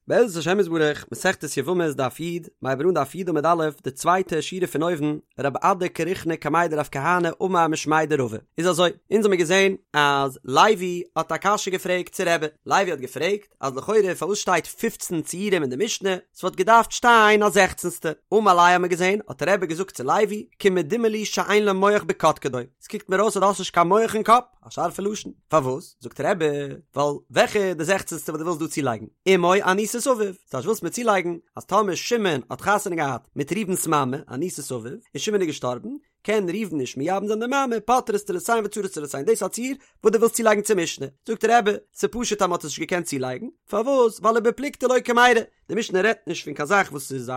בעזרת השם יתברך, מסכת יבמות דף י', מ'הייבט אן דף י' עמוד א', די צווייטע שורה פון אויבן, רב אדא קרחינא קמיה דרב כהנא אמר משמיה דרבא. איז אזוי, אונז האמיר געזען אז לוי האט א קשיא געפרעגט צו רבי, לוי האט געפרעגט אז לכאורה פארוואס שטייט פופצן ציורים אין די משנה, ס'וואלט געדארפט שטיין א זעכצנסטע, אמר ליה האמיר געזען האט רבי געזאגט צו לוי, כמדומה לי שאין לו מח בקדקדו, ס'קוקט מיר אויס אז דו האסט נישט קיין מח אין קאפ. א שארפע לשון. פארוואס? זאגט רבי, ווייל וועלכע איז די זעכצנסטע וואס דו ווילסט דא צולייגן? אמו אנוסת אביו. ס'טייטש ווילסט מיר צולייגן אז טאמער שמעון האט חתונה געהאט מיט ראובן'ס מאמע, אנוסת אביו, און שמעון איז געשטארבן, קען ראובן נישט מייבם זיין די מאמע, פוטרות צרותיהן וצרות צרותיהן. דאס איז א ציור וואס דו ווילסט צולייגן צום משנה. זאגט רבי, ס'פשוט אז מ'האט עס נישט געקענט צולייגן. פארוואס? ווייל ובפלוגתא לא קמיירי. די משנה רעדט נישט פון קיין זאך וואס איז א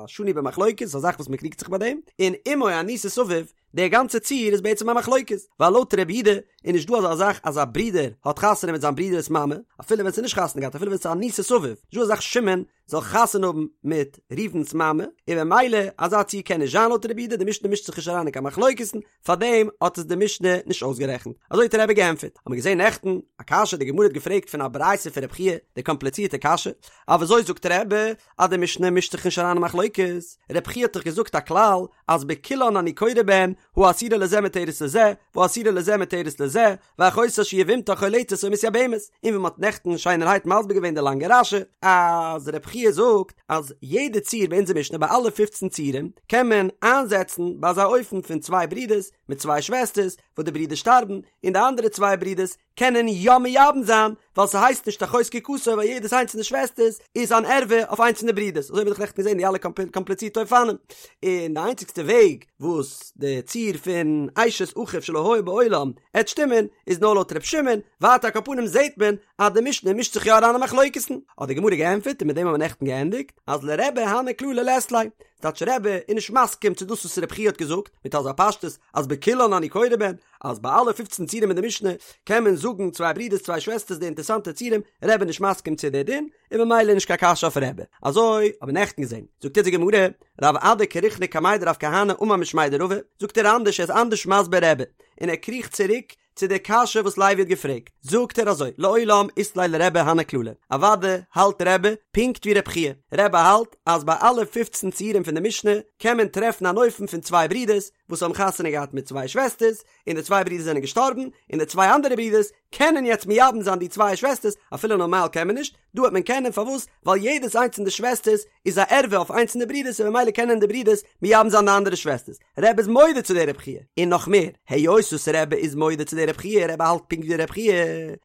שנוי במחלוקת, ס'איז א זאך וואס מ'קריגט זיך ביי דעם. און אמו אנוסת אביו דער גאנצער ציור איז בעצם א מחלוקת, ווייל לויט רבי יהודה איז נישט דא אזא זאך אז א ברודער האט חתונה מיט זיין ברודער'ס מאמע, אפילו ווען ס'איז נישט חתונה געהאט, אפילו ווען ס'איז אנוסת אביו, נישט דא אזא זאך שמעון זאל חתונה האבן מיט ראובן'ס מאמע, און במילא אזא ציור קען נישט זיין לויט רבי יהודה, די משנה מישט זיך נישט אריין אין קיין מחלוקת'ן, פארדעם האט עס די משנה נישט אויסגערעכנט. אזוי האט רבי געענטפערט. האט מען געזען נעכטן א קשיא, די גמרא האט געפרעגט פון א ברייתא פון רבי חייא, די קאמפליצירטע קשיא, אז וויאזוי זאגט רבי אז די משנה מישט זיך נישט אריין אין מחלוקת, רבי חייא האט דאך געזאגט א כלל אז בכולן אני קורא בהן, האסורה לזה מותרת לזה, והאסורה לזה מותרת לזה, ואחותה שהיא יבמתה חולצת או מתייבמת, און ווי מ'האט נעכטן שיינערהייט מסביר געווען די לאנגע רש"י, אז רבי חייא זאגט אז יעדע ציור ביי אונזער משנה ביי אלע פופצן ציורים קען מען איינזעצן ביי אזא אופן פון צוויי ברידערס מיט צוויי שוועסטערס וואס די ברידער שטארבן און די אנדערע צוויי ברידערס קענען יא מייבם זיין, ווייל ס'הייסט נישט אחות זקוקתו ווייל יעדעס איינס פון די שוועסטערס איז אן ערווה אויף איינס פון די ברידערס, אזוי האב איך נעכטן געזען די אלע קאמפליצירטע אופנים, און די איינציגסטע וועג וואס די ציור פון אשת אחיו שלא היה בעולם עט שטימען איז נאר לויט ר' שמעון, ווייטער על כל פנים זעט מען אז די משנה מישט זיך יא אריין אין מחלוקת'ן, האט די גמרא געענטפערט און מיט דעם האבן מיר נעכטן געענדיגט, אז לרבי הני כללי לית ליה, ס'טייטש רבי איז נישט מסכים צו דאס וואס רבי חייא האט געזאגט מיט אזא פשטות אז בכולן אני קורא בהן, אז ביי אלע פופצן ציורים אין די משנה קען מען זאגן צוויי ברידערס צוויי שוועסטערס די אינטערסאנטע ציורים, רבי איז נישט מסכים צו די דין, און ממילא נישט קיין קשיא אויף רבי. אזוי האבן מיר נעכטן געזען. זאגט אונז די גמרא, רב אדא קרחינא קמיה דרב כהנא אמר משמיה דרבא, זאגט ער אנדערש ער איז אנדערש מסביר רבי, און ער קריכט צוריק צו די קשיא וואס לוי האט געפרעגט, זאגט ער אזוי, לעולם אית ליה לרבי הני כללי, אוודאי האלט רבי פונקט ווי רבי חייא, רבי האלט אז ביי אלע פופצן ציורים פון די משנה קען מען טרעפן אן אופן פון צוויי ברידערס וואס האבן חתונה געהאט מיט צוויי שוועסטערס, און די צוויי ברידערס זענען געשטארבן, און די צוויי אנדערע ברידערס קענען יעצט מייבם זיין די צוויי שוועסטערס, אפילו נארמאל קען מען נישט, דא וועט מען קענען, פארוואס? ווייל יעדעס איינס פון די שוועסטערס איז א ערווה אויף איינס פון די ברידערס און ממילא קענען די ברידערס מייבם זיין די אנדערע שוועסטערס. רבי איז מודה צו די רב חייא, און נאך מער, היות וואס רבי איז מודה צו די רב חייא, רבי האלט פונקט ווי רב חייא,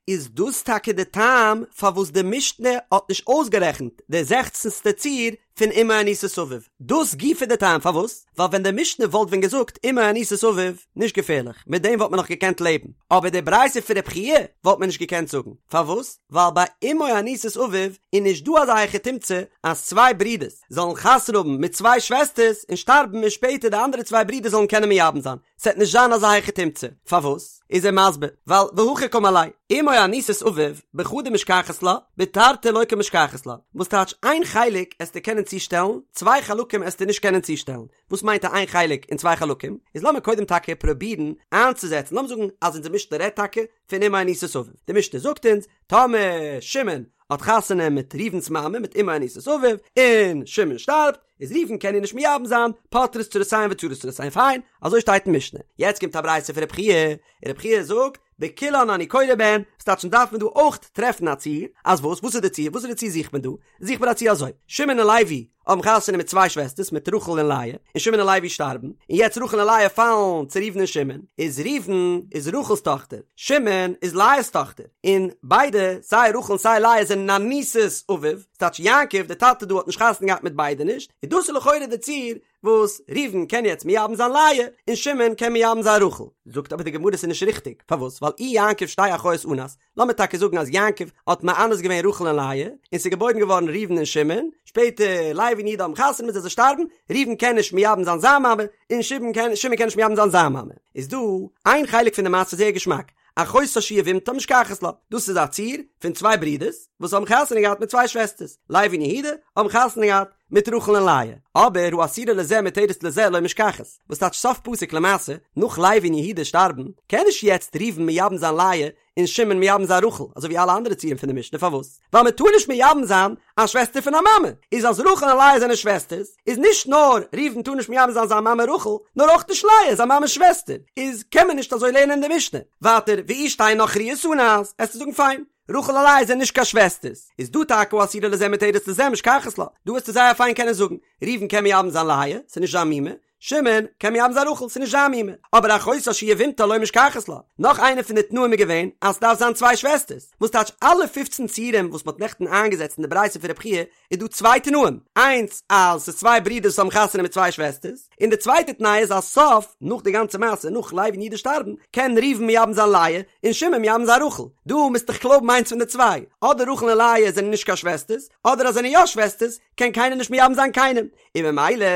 איז דאס טאקע די טעם פארוואס די משנה האט נישט אויסגערעכנט די זעכצנסטע ציור פון אמו אנוסת אביו, דאס גופא די טעם פארוואס, ווייל ווען די משנה וואלט ווען געזאגט אמו אנוסת אביו, נישט געפערליך, מיט דעם וואלט מען נאך געקענט לעבן, אבער די ברייתא פון רב חייא וואלט מען נישט געקענט זאגן, פארוואס? ווייל ביי אמו אנוסת אביו איז נישט דא אזא היכי תמצא אז צוויי ברידערס זאלן חתונה האבן מיט צוויי שוועסטערס און שטארבן און שפעטער די אנדערע צוויי ברידער זאלן קענען מייבם זיין, ס'עט נישט זיין אזא היכי תמצא, פארוואס? איז ער מסביר, ווייל והכי קאמר ליה, אמו אנוסת אביו בחדא משכחת לה, בתרתי לא קמשכחת לה, וואס טייטש איין חלק עסטו קענען צושטעלן, צוויי חלקים עסטו נישט קענען צושטעלן, וואס מיינט א איין חלק און צוויי חלקים? איז לאמיר קודם טאקע פרובירן איינצוזעצן, לאמיר זאגן אז אונזער משנה רעדט טאקע פון אמו אנוסת אביו, די משנה זאגט אונז, טאמער שמעון האט חתונה מיט ראובן'ס מאמע מיט אמו אנוסת אביו, און שמעון שטארבט, איז ראובן קען איר נישט מייבם זיין, פוטרות צרותיהן וצרות צרותיהן, פיין, אזוי שטייט אין משנה. יעצט קומט א ברייתא פון רב חייא, און רב חייא זאגט, בכולן אני קורא בהן, ס'טייטש דארף מען דא אויך טרעפן א ציור, אז וואס? וואס איז די ציור? וואס איז די ציור זוכט מען דא? זוכט מען א ציור אזוי, שמעון און לוי האבן חתונה מיט צוויי שוועסטערס מיט רחל און לאה, און שמעון און לוי שטארבן, און יעצט רחל און לאה פאלן צו ראובן און שמעון, איז ראובן איז רחל'ס טאכטער, שמעון איז לאה'ס טאכטער, און ביידע, סיי רחל און סיי לאה זענען אנוסת אביו, ס'טייטש יעקב דער טאטע דא האט נישט חתונה געהאט מיט ביידע נישט, און דאס איז לכאורה די ציור וואס ראובן קען יעצט מייבם זיין לאה, און שמעון קען מייבם זיין רחל. זאגט אבער די גמרא ס'איז נישט ריכטיג, פארוואס? ווייל אי יעקב שתי אחיות אנס, לאמיר טאקע זאגן אז יעקב האט מאנס געווען רחל און לאה, און ס'איז געבוירן געווארן ראובן און שמעון, שפעטער לוי און יהודה האבן חתונה מיט זיי זיי שטארבן, ראובן קען נישט מייבם זיין זיין מאמע, און שמעון קען שמעון קען נישט מייבם זיין זיין מאמע. איז דא איין חלק פון די מעשה זייער געשמאק, אחותה שהיא יבמתה משכחת לה, דאס איז א ציור פון צוויי ברידערס וואס האבן חתונה געהאט מיט צוויי שוועסטערס, לוי און יהודה האבן חתונה געהאט. מיט רחל און לאה, אבער האסורה לזה מותרת לזה לא משכחת, וואס טייטש סוף פסוק למעשה, נאך לוי און יהודה שטארבן, קען נישט יעצט ראובן מייבם זיין לאה און שמעון מייבם זיין רחל, אזוי ווי אלע אנדערע ציורים פון די משנה, פארוואס? ווייל מען טאר נישט מייבם זיין א שוועסטער פון א מאמע, איז אז רחל און לאה זענען שוועסטערס, איז נישט נאר ראובן טאר נישט מייבם זיין זיין מאמע רחל, נאר אויך נישט לאה זיין מאמע'ס שוועסטער, איז קען מען נישט אזוי לערנען אין די משנה. ווייטער, ואי שתי נכריות אנס, עסטו זאגן פיין, רחל און לאה זענען נישט קיין שוועסטערס, איז דא טאקע האסורה לזה מותרת לזה משכחת לה, דא וועסטו זייער פיין קענען זאגן, ראובן קען מייבם זיין לאה, ס'איז נישט זיין מומע, שמעון קען מייבם זיין רחל, ס'איז נישט זיין מומע, אבער אחותה שהיא יבמתה לא משכחת לה. נאך איינע פון די תנאים איז געווען אז ס'דארף זיין צוויי שוועסטערס, וואס טייטש אלע פופצן ציורים וואס מ'האט נעכטן איינגעזעצט אין די ברייתא פון רבי חייא איז דא צוויי תנאים, איינס אז ס'איז צוויי ברידערס וואס האבן חתונה מיט צוויי שוועסטערס, און די צווייטע תנאי איז אז סוף, נאך די גאנצע מעשה, נאך לוי און יהודה שטארבן, קען ראובן מייבם זיין לאה, און שמעון מייבם זיין רחל. דא מוזט דיך קלויבן איינס פון די צוויי, אדער רחל און לאה זענען נישט קיין שוועסטערס, אדער אז זענען יא שוועסטערס, קען קיינער נישט מייבם זיין קיינעם, און ממילא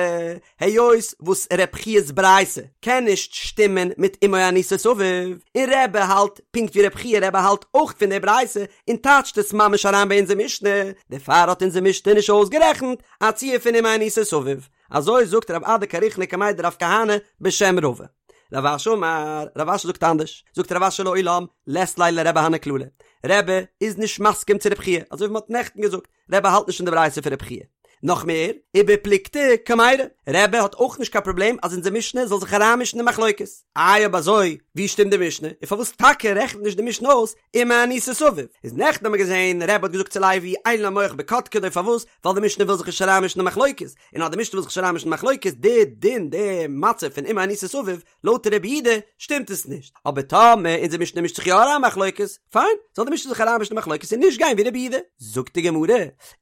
היות וואס ר' חייא'ס ברייתא קען נישט שטימען מיט אמו אנוסת אביו, און רבי האלט פונקט ווי ר' חייא רבי האלט אויך פון די ברייתא און טייטשט עס ממש אריין ביי אונזער משנה, דערפאר האט אונזער משנה נישט אויסגערעכנט א ציור פון אמו אנוסת אביו, אזוי זאגט רב אדא קריחנא קמיה דרב כהנא בשם רבא. רב אשי אמר, רב אשי זאגט אנדערש, זאגט רב אשי לעולם לית ליה לרבי הני כללי, רבי איז נישט מסכים צו רב חייא, אזוי ווי מען האט נעכטן געזאגט, רבי האלט נישט פון די ברייתא פון רבי חייא. נאך מער, ובפלוגתא קמיירי, רבי האט אויך נישט קיין פראבלעם אז אונזער משנה זאל זיך אריינמישן אין מחלוקת. איי אויב אזוי, ווי שטימט די משנה? און פארוואס טאקע רעכנט נישט די משנה אויס אמו אנוסת אביו? איז נעכטן האבן מיר געזען, רבי האט געזאגט צו לוי, אין לו מוח בקדקדו, פארוואס? ווייל די משנה וויל זיך נישט אריינמישן אין מחלוקת. און אז די משנה וויל זיך נישט אריינמישן אין מחלוקת, די דין, די מצב פון אמו אנוסת אביו, לויט רבי יהודה שטימט עס נישט, אבער טאמער אונזער משנה מישט זיך יא אריין מחלוקת, פיין, זאל די משנה זיך אריינמישן אין מחלוקת און נישט גיין ווי רבי יהודה. זאגט די גמרא,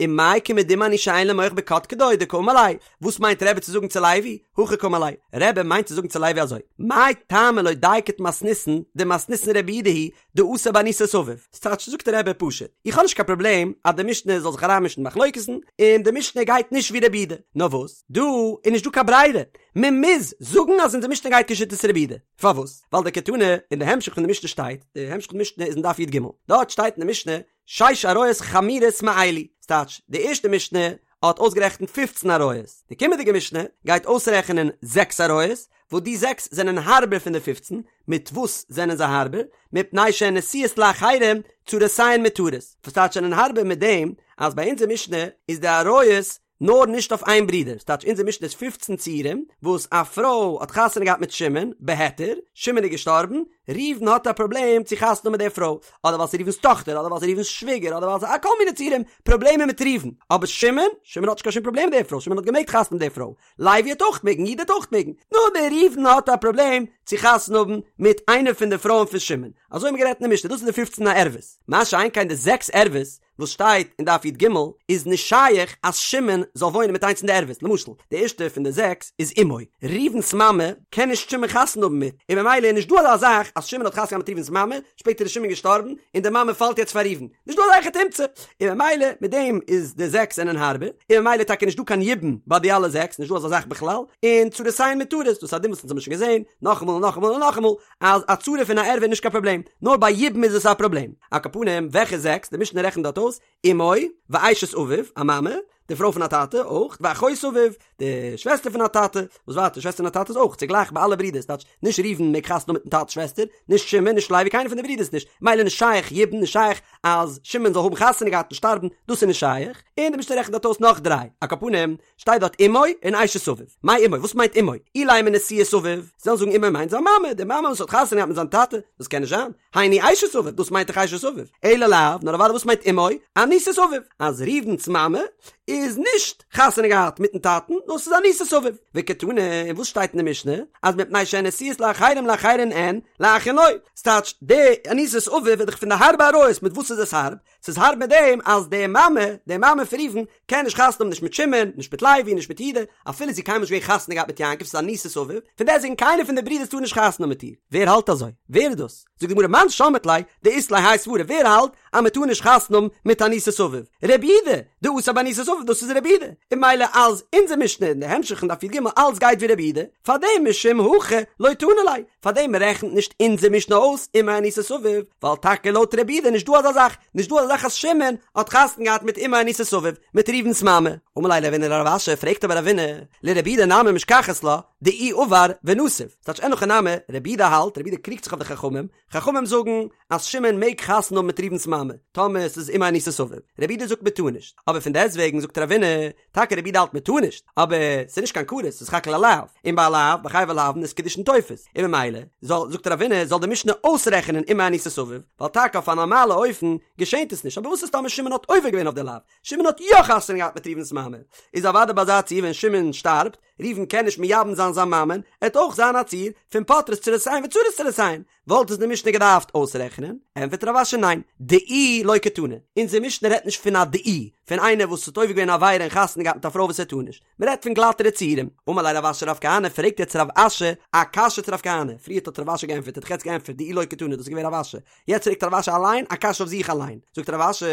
ומאי כמדומה אני שאין לו מוח בקדקדו דקאמר ליה, וואס מיינט רבי צו זאגן צו לוי, הכי קאמר ליה, רבי מיינט צו זאגן צו לוי אזוי, מאי טעמא לא דייקת מתניתין דמתניתין רבי יהודה היא דאסר באנוסת אביו, ס'טייטש זאגט רבי פשוט, איך האב נישט קיין פראבלעם אז די משנה זאל זיך אריינמישן אין מחלוקת'ן, און די משנה גייט נישט ווי רבי יהודה, נאר וואס, דא איז נישט דא קיין ברירה, מען מוז זאגן אז אונזער משנה גייט כשיטת רבי יהודה. פארוואס? ווייל דקתני אין די המשך פון די משנה שטייט, די המשך פון די משנה איז אין דף י"ג, דארט שטייט אין די משנה שש עריות חמורות מאלו, ס'טייטש די ערשטע משנה האט אויסגערעכנט פופצן עריות, די קומענדיגע משנה גייט אויסרעכענען זעקס עריות, וואס די זעקס זענען הארבער פון די פופצן, מיט וואס זענען זיי הארבער? מפני שהן נשואות לאחרים צרותיהן מותרות, וואס טייטש זענען הארבער מיט דעם אז ביי אונזער משנה איז די עריות נאר נישט אויף איין ברודער, ס'טייטש אונזער משנה איז פופצן ציורים וואס א פרוי האט חתונה געהאט מיט שמעון, בהיתר, שמעון איז געשטארבן, ראובן האט א פראבלעם צו חתונה האבן מיט די פרוי, אדער ווייל ס'איז ראובן'ס טאכטער, אדער ווייל ס'איז ראובן'ס שוויגער, אדער ווייל ס'איז א כל מיני ציורים, פראבלעמען מיט ראובן, אבער שמעון, שמעון האט נישט קיין שום פראבלעם מיט די פרוי, שמעון האט געמעגט חתונה מיט די פרוי, לוי האט אויך מעגן, יהודה האט אויך מעגן, נאר דער ראובן האט א פראבלעם צו חתונה האבן מיט איינע פון די פרויען פון שמעון, אזוי האבן מיר גערעדט אין די משנה, דאס איז די פופצן ערוות, מה שאין כן די זעקס ערוות, וואס שטייט אין דף י"ג איז נישט שייך אז שמעון זאל וואוינען מיט איינס פון די ערוות, למשל די ערשטע פון די זעקס איז אמו, ראובן'ס מאמע קען נישט שמעון חתונה האבן מיט, און ממילא איז נישט דא אזא זאך אז שמעון האט חתונה געהאט מיט ראובן'ס מאמע, שפעטער איז שמעון געשטארבן און די מאמע פאלט יעצט פאר ראובן, נישט דא אזא היכי תמצא, און ממילא מיט דעם איז די זעקס זענען הארבער, און ממילא טאקע נישט דא קיין יבום ביי די אלע זעקס, נישט דא אזא זאך בכלל, און צרותיהן מותרות, דאס איז א דין וואס אונז האבן שוין געזען, נאכאמאל און נאכאמאל און נאכאמאל, אז א צרה פון א ערווה איז נישט קיין פראבלעם, נאר ביי יבום איז עס א פראבלעם. על כל פנים, וועלכע זעקס? די משנה רעכנט דארט אויס, אמו, ואשת אביו, א מאמע, די פרוי פון א טאטע, אויך, ואחות אביו, די שוועסטער פון א טאטע, וואס ווייטער, שוועסטער פון א טאטע איז אויך צוגלייך ביי אלע ברידערס, טייטש, נישט ראובן מעג חתונה האבן מיטן טאטע'ס שוועסטער, נישט שמעון, נישט לוי, קיינער פון די ברידערס נישט, מילא נישט שייך יבום, נישט שייך אז שמעון זאל האבן חתונה געהאט און שטארבן, דאס איז נישט שייך, און די משנה רעכנט דארט אויס נאך דריי, על כל פנים, שטייט דארט אמו און אשת אביו. מאי אמו? וואס מיינט אמו? אילימא נשואת אביו. זאלן זאגן אמו מיינט זיין מאמע, די מאמע וואס האט חתונה געהאט מיט זיין טאטע. דאס קען נישט זיין. היינו אשת אביו, דאס מיינט דאך אשת אביו. אלא לאו, נאר אוודאי וואס מיינט אמו? אנוסת אביו. אז ראובן'ס מאמע איז נישט חתונה געהאט מיטן טאטן, נאר ס'איז אנוסת אביו. וקתני, און וואס שטייט אין די משנה? אז מפני שהן נשואות לאחרים לאחרים אין, לאחין לא. ס'טייטש, די אנוסת אביו איז דאך פון די הארבע עריות, מיט וואס איז עס הארב? ס'איז הארב מיט דעם אז די מאמע, די מאמע פון ראובן, קען נישט חתונה האבן נישט מיט שמעון, נישט מיט לוי, נישט מיט יהודה, אפילו זי איז קיינמאל נישט געווען חתונה געהאט מיט יעקב, ס'איז אנוסת אביו, פון דעסטוועגן קיינער פון די ברידערס טאר נישט חתונה האבן מיט איר. ווער האלט אזוי? ווער איז דאס? זאגט די גמרא מאן שמעת ליה דאית ליה האי סברא, ווער האלט אז מען טאר נישט חתונה האבן מיט אנוסת אביו? רבי יהודה, דאסר באנוסת אביו, דאס איז רבי יהודה. און ממילא אז אונזער משנה אין די המשך אין דף י"ג אלץ גייט ווי רבי יהודה, פארדעם משום הכי לא תנא ליה, פאר דעם רעכנט נישט אונזער משנה אויס אמו אנוסת אביו, ווייל טאקע לויט רבי יהודה איז נישט דא אזא זאך, נישט דא אזא זאך אז שמעון האט חתונה געהאט מיט אמו אנוסת אביו, מיט ראובן'ס מאמע. אמר ליה רבינא לרב אשי, פרעגט אבער רבינא, לרבי יהודה נמי משכחת לה, דאיהו עבר ונסיב. ס'טייטש אין הכי נמי, רבי יהודה האלט, רבי יהודה קריגט זיך אויף די חכמים, חכמים זאגן אז שמעון מעג חתונה האבן מיט ראובן'ס מאמע, טאמער ס'איז אמו אנוסת אביו. רבי יהודה זאגט מ'טאר נישט. אבער פון דעסטוועגן זאגט רבינא, טאקע רבי יהודה האלט מ'טאר נישט, אבער ס'איז נישט קיין כרת, ס'איז סך הכל א לאו, און ביי א לאו, ביי חייבי לאוין איז קידושין תופס, און ממילא, זאל, זאגט רבינא, זאל די משנה אויסרעכענען אמו אנוסת אביו, ווייל טאקע אויף א נארמאלע אופן געשענט עס נישט, אבער וואס איז טאמער שמעון האט עובר געווען אויף די לאו, שמעון האט יא חתונה געהאט מיט ראובן'ס מאמע, איז אוודאי ביי אזא ציור ווען שמעון שטארבט, ראובן קען נישט מייבם זיין זיין מאמען, עט אויך זיין א ציור פון פוטרות צרותיהן וצרות צרותיהן, וואלט עס די משנה געדארפט אויסרעכענען? ענטפערט רב אשי ניין, דאיהו לא קתני, אונזער משנה רעדט נישט פון א דאיהו, פון איינער וואס האט עובר געווען א עבירה און חתונה געהאט מיט א פרוי וואס ער טאר נישט, מען רעדט פון גלאטערע ציורים. אמר ליה רב אשי לרב כהנא, פרעגט יעצט רב אשי א קשיא צו רב כהנא, פריערט האט רב אשי געענטפערט, האט דאך יעצט געענטפערט דאיהו לא קתני, דאס איז געווען רב אשי, יעצט פרעגט רב אשי אליין א קשיא אויף זיך אליין, זאגט רב אשי,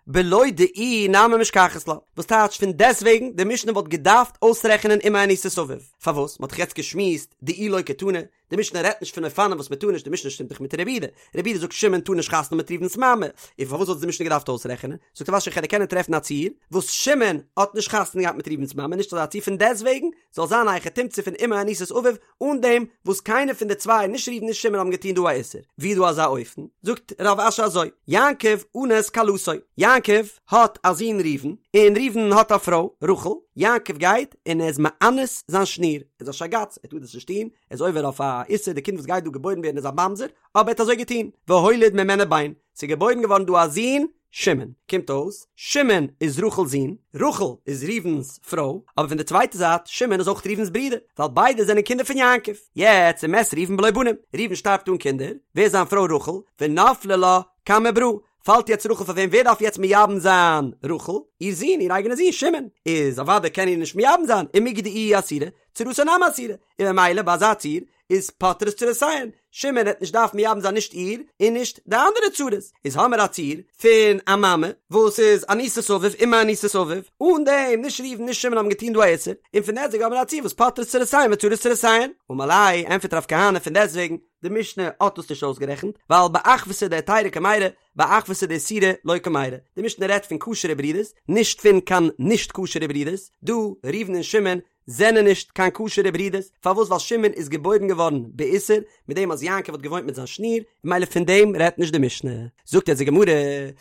בלא דאיהו נמי משכחת לה, וואס טייטש פון דעסטוועגן די משנה וואלט געדארפט אויסרעכענען אמו אנוסת אביו, פארוואס? מען האט דאך יעצט געשמועסט דאיהו לא קתני, די משנה רעדט נישט פון אופנים וואס מען טאר נישט, די משנה שטימט דאך מיט רבי יהודה, רבי יהודה זאגט שמעון טאר נישט חתונה מיט ראובן'ס מאמע, און פארוואס וואלט עס די משנה געדארפט אויסרעכענען? זאגט רב אשי איך וועל קענען טרעפן א ציור וואס שמעון האט נישט חתונה געהאט מיט ראובן'ס מאמע, נישט אזא ציור פון דעסטוועגן זאל זיין א היכי תמצא פון אמו אנוסת אביו אן דעם וואס קיינער פון די צוויי נישט ראובן נישט שמעון האבן געטון דא א איסור, ווי איז דא אזא אופן? זאגט רב אשי אזוי, יעקב אנס כלתו, יעקב האט א זון ראובן, און ראובן האט א פרוי רחל, יעקב גייט און ער איז מאנס זיין שניר, ער איז א שייגאץ, ער טאר דאס נישט טון, ער איז עובר אויף א איסור, די קינד וואס גייט דא געבוירן ווערן איז א ממזר, אבער ער האט אזוי געטון, והוליד ממנה בן, ס'איז געבוירן געווארן דא א זון שמעון, קומט אויס, שמעון איז רחל'ס זון, רחל איז ראובן'ס פרוי, אבער פון די צווייטע זייט, שמעון איז אויך ראובן'ס ברודער, ווייל ביידע זענען קינדער פון יעקב. יעצט ומת ראובן בלא בנים, ראובן שטארבט אן קינדער, ווער איז זיין פרוי רחל? ונפלה לה קמי ברא, פאלט יעצט רחל פאר וועם? ווער דארף יעצט מייבם זיין רחל? איר זון, איר אייגענע זון שמעון, איז אוודאי קען איר נישט מייבם זיין, ומיגו דאיהי אסירא, צרתה נמי אסירא, און ממילא ביי אזא ציור איז פוטרות צרותיהן, שמעון העט נישט דארפן מייבם זיין נישט איר און נישט די אנדערע צרות, איז האמער א ציור פון א מאמע וואס איז אנוסת אביו אמו אנוסת אביו, אן דעם נישט ראובן נישט שמעון האבן געטון דא א איסור, און פון דעסטוועגן האמער א ציור וואס פוטרות צרותיהן וצרות צרותיהן. אמר ליה, ענטפערט רב כהנא פון דעסטוועגן, די משנה האט דאס נישט אויסגערעכנט, ווייל באחוותא דהיתירא קמיירי, באחוותא דאיסורא לא קמיירי. די משנה רעדט פון כשר'ע ברידערס, נישט פון קיין נישט כשר'ע ברידערס, דא ראובן און שמעון זענען נישט קיין כשר'ע ברידערס, פארוואס ווייל שמעון איז געבוירן געווארן באיסור, מיט דעם אז יעקב האט געוואוינט מיט זיין שניר, ממילא פון דעם רעדט נישט די משנה. זאגט יעצט די גמרא,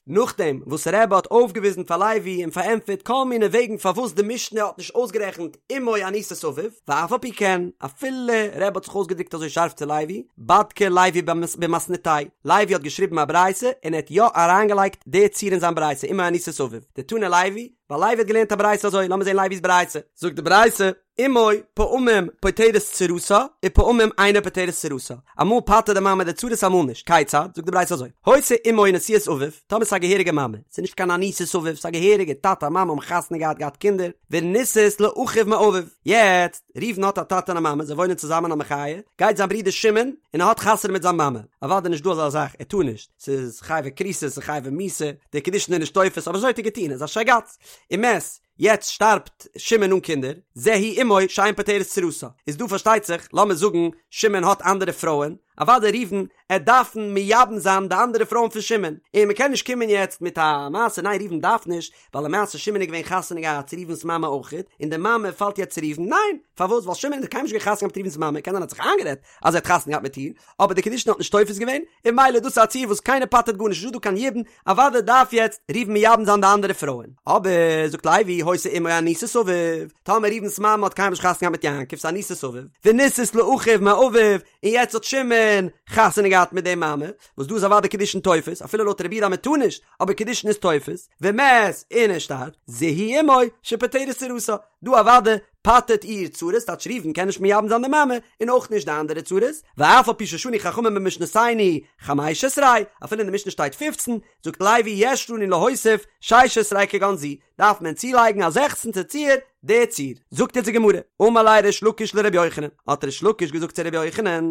נאכדעם וואס רבי האט אויפגעוויזן פאר לוי און פארענטפערט כל מיני וועגן פארוואס די משנה האט נישט אויסגערעכנט אמו אנוסת אביו, ואף על פי כן, אפילו רבי האט זיך אויסגעדרוקט אזוי שארף צו לוי, בדקה לוי במתניתיה, לוי האט געשריבן א ברייתא און ער האט יא אריינגעלייגט די ציור אין זיין ברייתא אמו אנוסת אביו, דתני לוי, ווייל לוי האט געלערנט א ברייתא אזוי, לאמיר זען לוי'ס ברייתא, זאגט די ברייתא, אמו פעמים פוטרת צרתה ופעמים אינה פוטרת צרתה, אמאל פטר'ט די מאמע די צרות אמאל נישט, כיצד? זאגט די ברייתא אזוי, היתה אמו נשואת אביו, טאמער ס'איז א געהעריגע מאמע, ס'איז נישט קיין אנוסת אביו, ס'איז א געהעריגע טאטע מאמע האבן חתונה געהאט געהאט קינדער, ונישאת לאחיו מאביו, יעצט, ראובן האט א טאטע און א מאמע, זיי וואוינען צוזאמען א מחיה, גייט זיין ברודער שמעון און ער האט חתונה מיט זיין מאמע, אוודאי נישט דא אזא זאך, ער טאר נישט, ס'איז חייבי כריתות ס'איז חייבי מיתה, די קידושין איז נישט תופס, אבער אזוי האט ער געטון, ער איז א שייגאץ, ומת, יעצט שטארבט שמעון אן קינדער, זו היא אמו שאין פוטרת צרתה, איז דא פארשטייט זיך, לאמיר זאגן שמעון האט אנדערע פרויען, אוודאי ראובן עט דארפן מייבם זיין די אנדערע פרויען פון שמעון, און מ'קען נישט קומען יעצט מיט א מעשה ניין ראובן דארף נישט, ווייל למעשה שמעון איז געווען חתונה געהאט צו ראובן'ס מאמע אויכעט, און די מאמע פאלט יעצט צו ראובן, ניין! פארוואס? ווייל שמעון האט קיינמאל נישט געהאט חתונה געהאט מיט ראובן'ס מאמע, קען זיין ער האט זיך איינגערעדט אז ער האט חתונה געהאט מיט איר, אבער די קידושין האט נישט תופס געווען, און ממילא דאס איז א ציור וואס קיינער פטר'ט גארנישט, נישטא דא קיין יבום, אוודאי דארף יעצט ראובן מייבם זיין די אנדערע פרויען. אבער, זאגט לוי, היתה אמו אנוסת אביו, טאמער ראובן'ס מאמע האט קיינמאל נישט חתונה געהאט מיט יעקב, ס'איז אנוסת אביו, ונישאת לאחיו מאביו, און יעצט האט שמעון חתונה געהאט מיט די מאמע, וואס דא איז אוודאי קידושין תופס, אפילו לויט רבי יהודה אז מען טאר נישט, אבער קידושין איז תופס, ומת, און ער שטארבט, זו היא אמו שפוטרת צרתה, דא אוודאי פטר'ט איר צרות, טייטש ראובן קען נישט מייבם זיין די מאמע, און אויך נישט די אנדערע צרות, ואף על פי ששנו חכמים במשנתינו חמש עשרה, אפילו אין די משנה שטייט פופצן, זאגט לוי יש לנו להוסיף שש עשרה כגון זו, דארף מען צולייגן א זעכצנטע ציור. די ציור. זאגט יעצט די גמרא, אמר ליה ריש לקיש לרבי יוחנן, האט ריש לקיש געזאגט צו רבי יוחנן,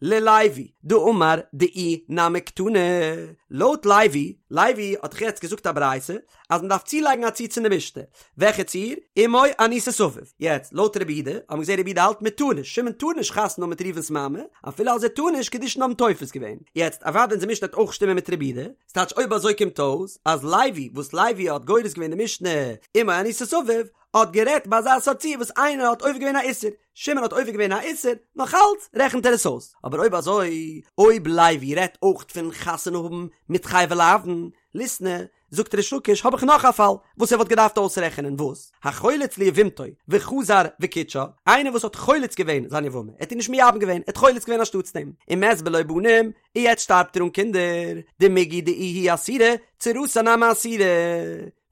ללוי דאמר דאי נמי קתני, לויט לוי, לוי האט דאך יעצט געזאגט א ברייתא אז מען דארף צולייגן א ציור צו די משנה, וועלכע ציור? אמו אנוסת אביו. יעצט, לויט רבי יהודה, האבן מיר געזען רבי יהודה האלט מען טאר נישט, שמעון טאר נישט חתונה האבן מיט ראובן'ס מאמע, אפילו אז ער טאר נישט, קידושין האבן תופס געווען. יעצט, אוודאי אונזער משנה וועט אויך שטימען מיט רבי יהודה, ס'טייטש אויב אזוי קומט אויס אז לוי וואס לוי האט גורס געווען די משנה אמו אנוסת אביו האט גערעדט ביי אזא סארט ציור וואס איינער האט עובר געווען א איסור, שמעון האט עובר געווען א איסור, נאך אלץ רעכנט ער עס אויס. אבער אויב אזוי אויב לוי רעדט אויך פון חתונה האבן מיט חייבי לאוין, ליתני, זאגט ריש לקיש האב איך נאך א פאל וואס ער וואלט געדארפט אויסרעכענען וואס? החולץ ליבמתו וחזר וקידשה, איינער וואס האט חולץ געווען זיין יבמה, ער האט איר נישט מייבם געווען, ער האט חולץ געווען אנשטאטס דעם, ומת בלא בנים, און יעצט שטארבט ער אן קינדער, דמיגו דאיהי אסירא, צרתה נמי אסירא.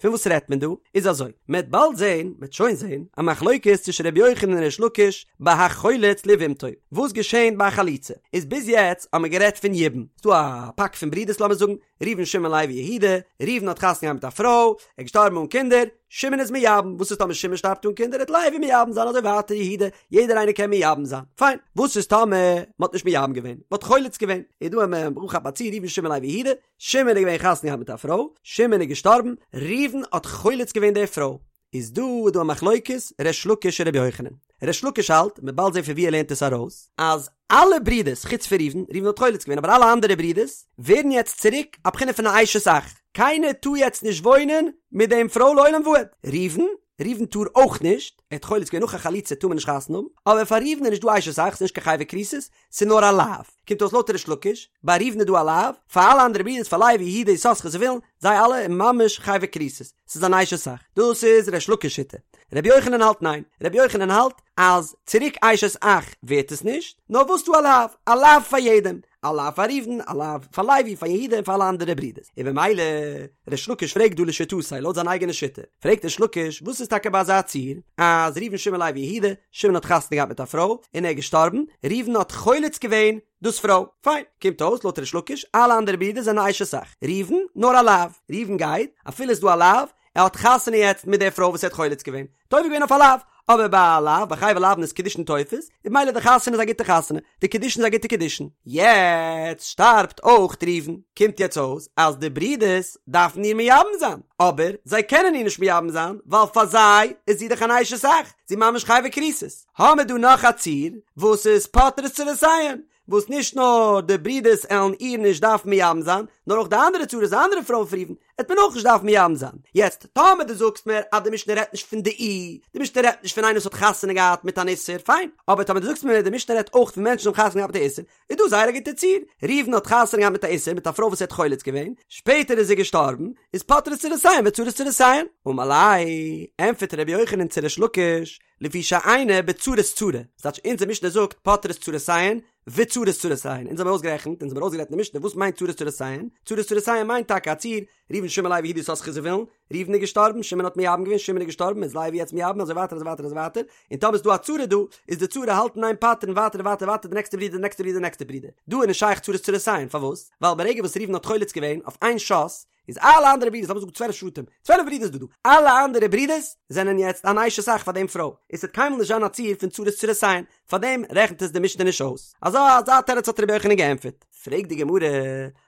פון וואס רעדט מען דא? איז אזוי, מען וועט באלד זען, מען וועט שוין זען, א מחלוקת צווישן רבי יוחנן און ריש לקיש ביי החולץ ליבמתו, וואס געשענט ביי א חליצה? איז ביז יעצט האט מען גערעדט פון יבום, ס'דא א פאק פון ברידערס לאמיר זאגן, ראובן שמעון לוי יהודה, ראובן האט חתונה געהאט מיט א פרוי, ער איז געשטארבן אן קינדער, שמעון איז מייבם, וואס איז טאמער שמעון שטארבט אן קינדער, וועט לוי מייבם זיין אזוי ווייטער יהודה, יעדער איינער קען מייבם זיין, פיין, וואס איז טאמער מען האט נישט מייבם געווען, מען האט חולץ געווען, איז דא א ברוך הבא צו ראובן שמעון לוי יהודה, שמעון איז געווען חתונה געהאט מיט א פרוי, שמעון איז געשטארבן, ראובן האט חולץ געווען די פרוי, איז דא איז דא א מחלוקת ריש לקיש און רבי יוחנן. ריש לקיש האלט, מ'וועט באלד זען פון ווי ער לערנט עס ארויס, אז אלע ברידערס חוץ פון ראובן, ראובן האט חולץ געווען אבער אלע אנדערע ברידערס ווערן יעצט צוריק א בחינה פון א אשת אח, קיינער טאר יעצט נישט וואוינען מיט דעם פרוי לעולם ועד. ראובן, ראובן טאר אויך נישט, ער האט חולץ געווען נאך א חליצה טאר מען נישט חתונה האבן, אבער פאר ראובן איז נישט דא אשת אח, ס'איז נישט קיין חייבי כריתות, ס'איז נאר א לאו. קומט אויס לויט ריש לקיש, ביי ראובן איז דא א לאו, פאר אלע אנדערע ברידערס פאר לוי יהודה יששכר זבולון, זיי אלע און ממש חייבי כריתות, ס'איז אן אשת אח. דאס איז ריש לקיש שיטה. רבי יוחנן האלט ניין. רבי יוחנן האלט אז צוריק אשת אח ווערט עס נישט, נאר וואס דא א לאו, א לאו פאר יעדעם, א לאו פאר ראובן, א לאו פאר לוי, פאר יהודה און פאר אלע אנדערע ברידערס. און במילא, ריש לקיש פרעגט דא לשיטתו, לויט זיין אייגענע שיטה, פרעגט ריש לקיש, וואס איז טאקע ביי אזא ציור, אז ראובן שמעון לוי יהודה, שמעון האט חתונה געהאט מיט א פרוי, און ער איז געשטארבן, ראובן האט חולץ געווען דאס פרוי. פיין, קומט אויס לויט ריש לקיש, אלע אנדערע ברידער זענען אשת אח, ראובן, נאר א לאו. ראובן גייט, אפילו איז דא א לאו, ער האט חתונה יעצט מיט די פרוי וואס ער האט חולץ געווען, האט עובר געווען אויף א לאו, אבער ביי א לאו, ביי חייבי לאוין איז קידושין תופס, און במילא די חתונה איז א גוטע חתונה, די קידושין איז א גוטע קידושין. יעצט שטארבט אויך ראובן, קומט יעצט אויס אז די ברידערס דארפן איר מייבם זיין, אבער זיי קענען איר נישט מייבם זיין, ווייל פאר זיי איז זי דאך אן אשת אח, זי ממש חייבי כריתות. האמער דא נאך א ציור וואס איז פוטרות צרותיהן, וואס נישט נאר די ברידערס עלן איר נישט דארפן מייבם זיין, נאר אויך די אנדערע צרות, די אנדערע פרויען פון ראובן, עט מען אויך נישט דארפן מייבם זיין. יעצט, טאמער דו זאגסט מיר אז די משנה רעדט נישט פון דאי, די משנה רעדט נישט פון איינער וואס האט חתונה געהאט מיט אן איסור, פיין, אבער טאמער דו זאגסט מיר די משנה רעדט אויך פון מענטשן וואס האבן חתונה געהאט מיט א איסור, איז דא זייער א גוטע ציור, ראובן האט חתונה געהאט מיט א איסור מיט א פרוי וואס ער האט חולץ געווען, שפעטער איז זי געשטארבן, איז פוטרות צרותיהן וצרות צרותיהן. אמר ליה, ענטפערט רבי יוחנן צו ריש לקיש, לפי שאינה בצרת צרה, ס'טייטש אונזער משנה זאגט פוטרות צרותיהן וצרות צרותיהן, אונז האבן אויסגערעכנט, אונז האבן ארויסגערעדט אין די משנה וואס מיינט צרות צרותיהן, צרות צרותיהן מיינט טאקע א ציור, ראובן שמעון לוי יהודה יששכר זבולון, ראובן איז געשטארבן, שמעון האט מייבם געווען, שמעון איז געשטארבן, איז לוי יעצט מייבם, אזוי ווייטער אזוי ווייטער אזוי ווייטער, און טאמער איז דא א צרה דא, איז די צרה האלט אין איין פטר'ן ווייטער און ווייטער ווייטער די נעקסטע ברודער די נעקסטע ברודער די נעקסטע ברודער, דא איז נישט שייך צרות צרותיהן, פארוואס? ווייל ברגע וואס ראובן האט חולץ געווען אויף איין שאס, איז אלע אנדערע ברידערס, לאמיר זאגן 12 שבטים, 12 ברידערס דא דא, אלע אנדערע ברידערס זענען יעצט אן אשת אח פאר דעם פרוי, און ס'וועט קיינמאל נישט זיין א ציור פון צרות צרותיהן, פאר דעם רעכנט עס די משנה נישט אויס. אזא אזא תירוץ האט רבי יוחנן געענטפערט. פרעגט די גמרא,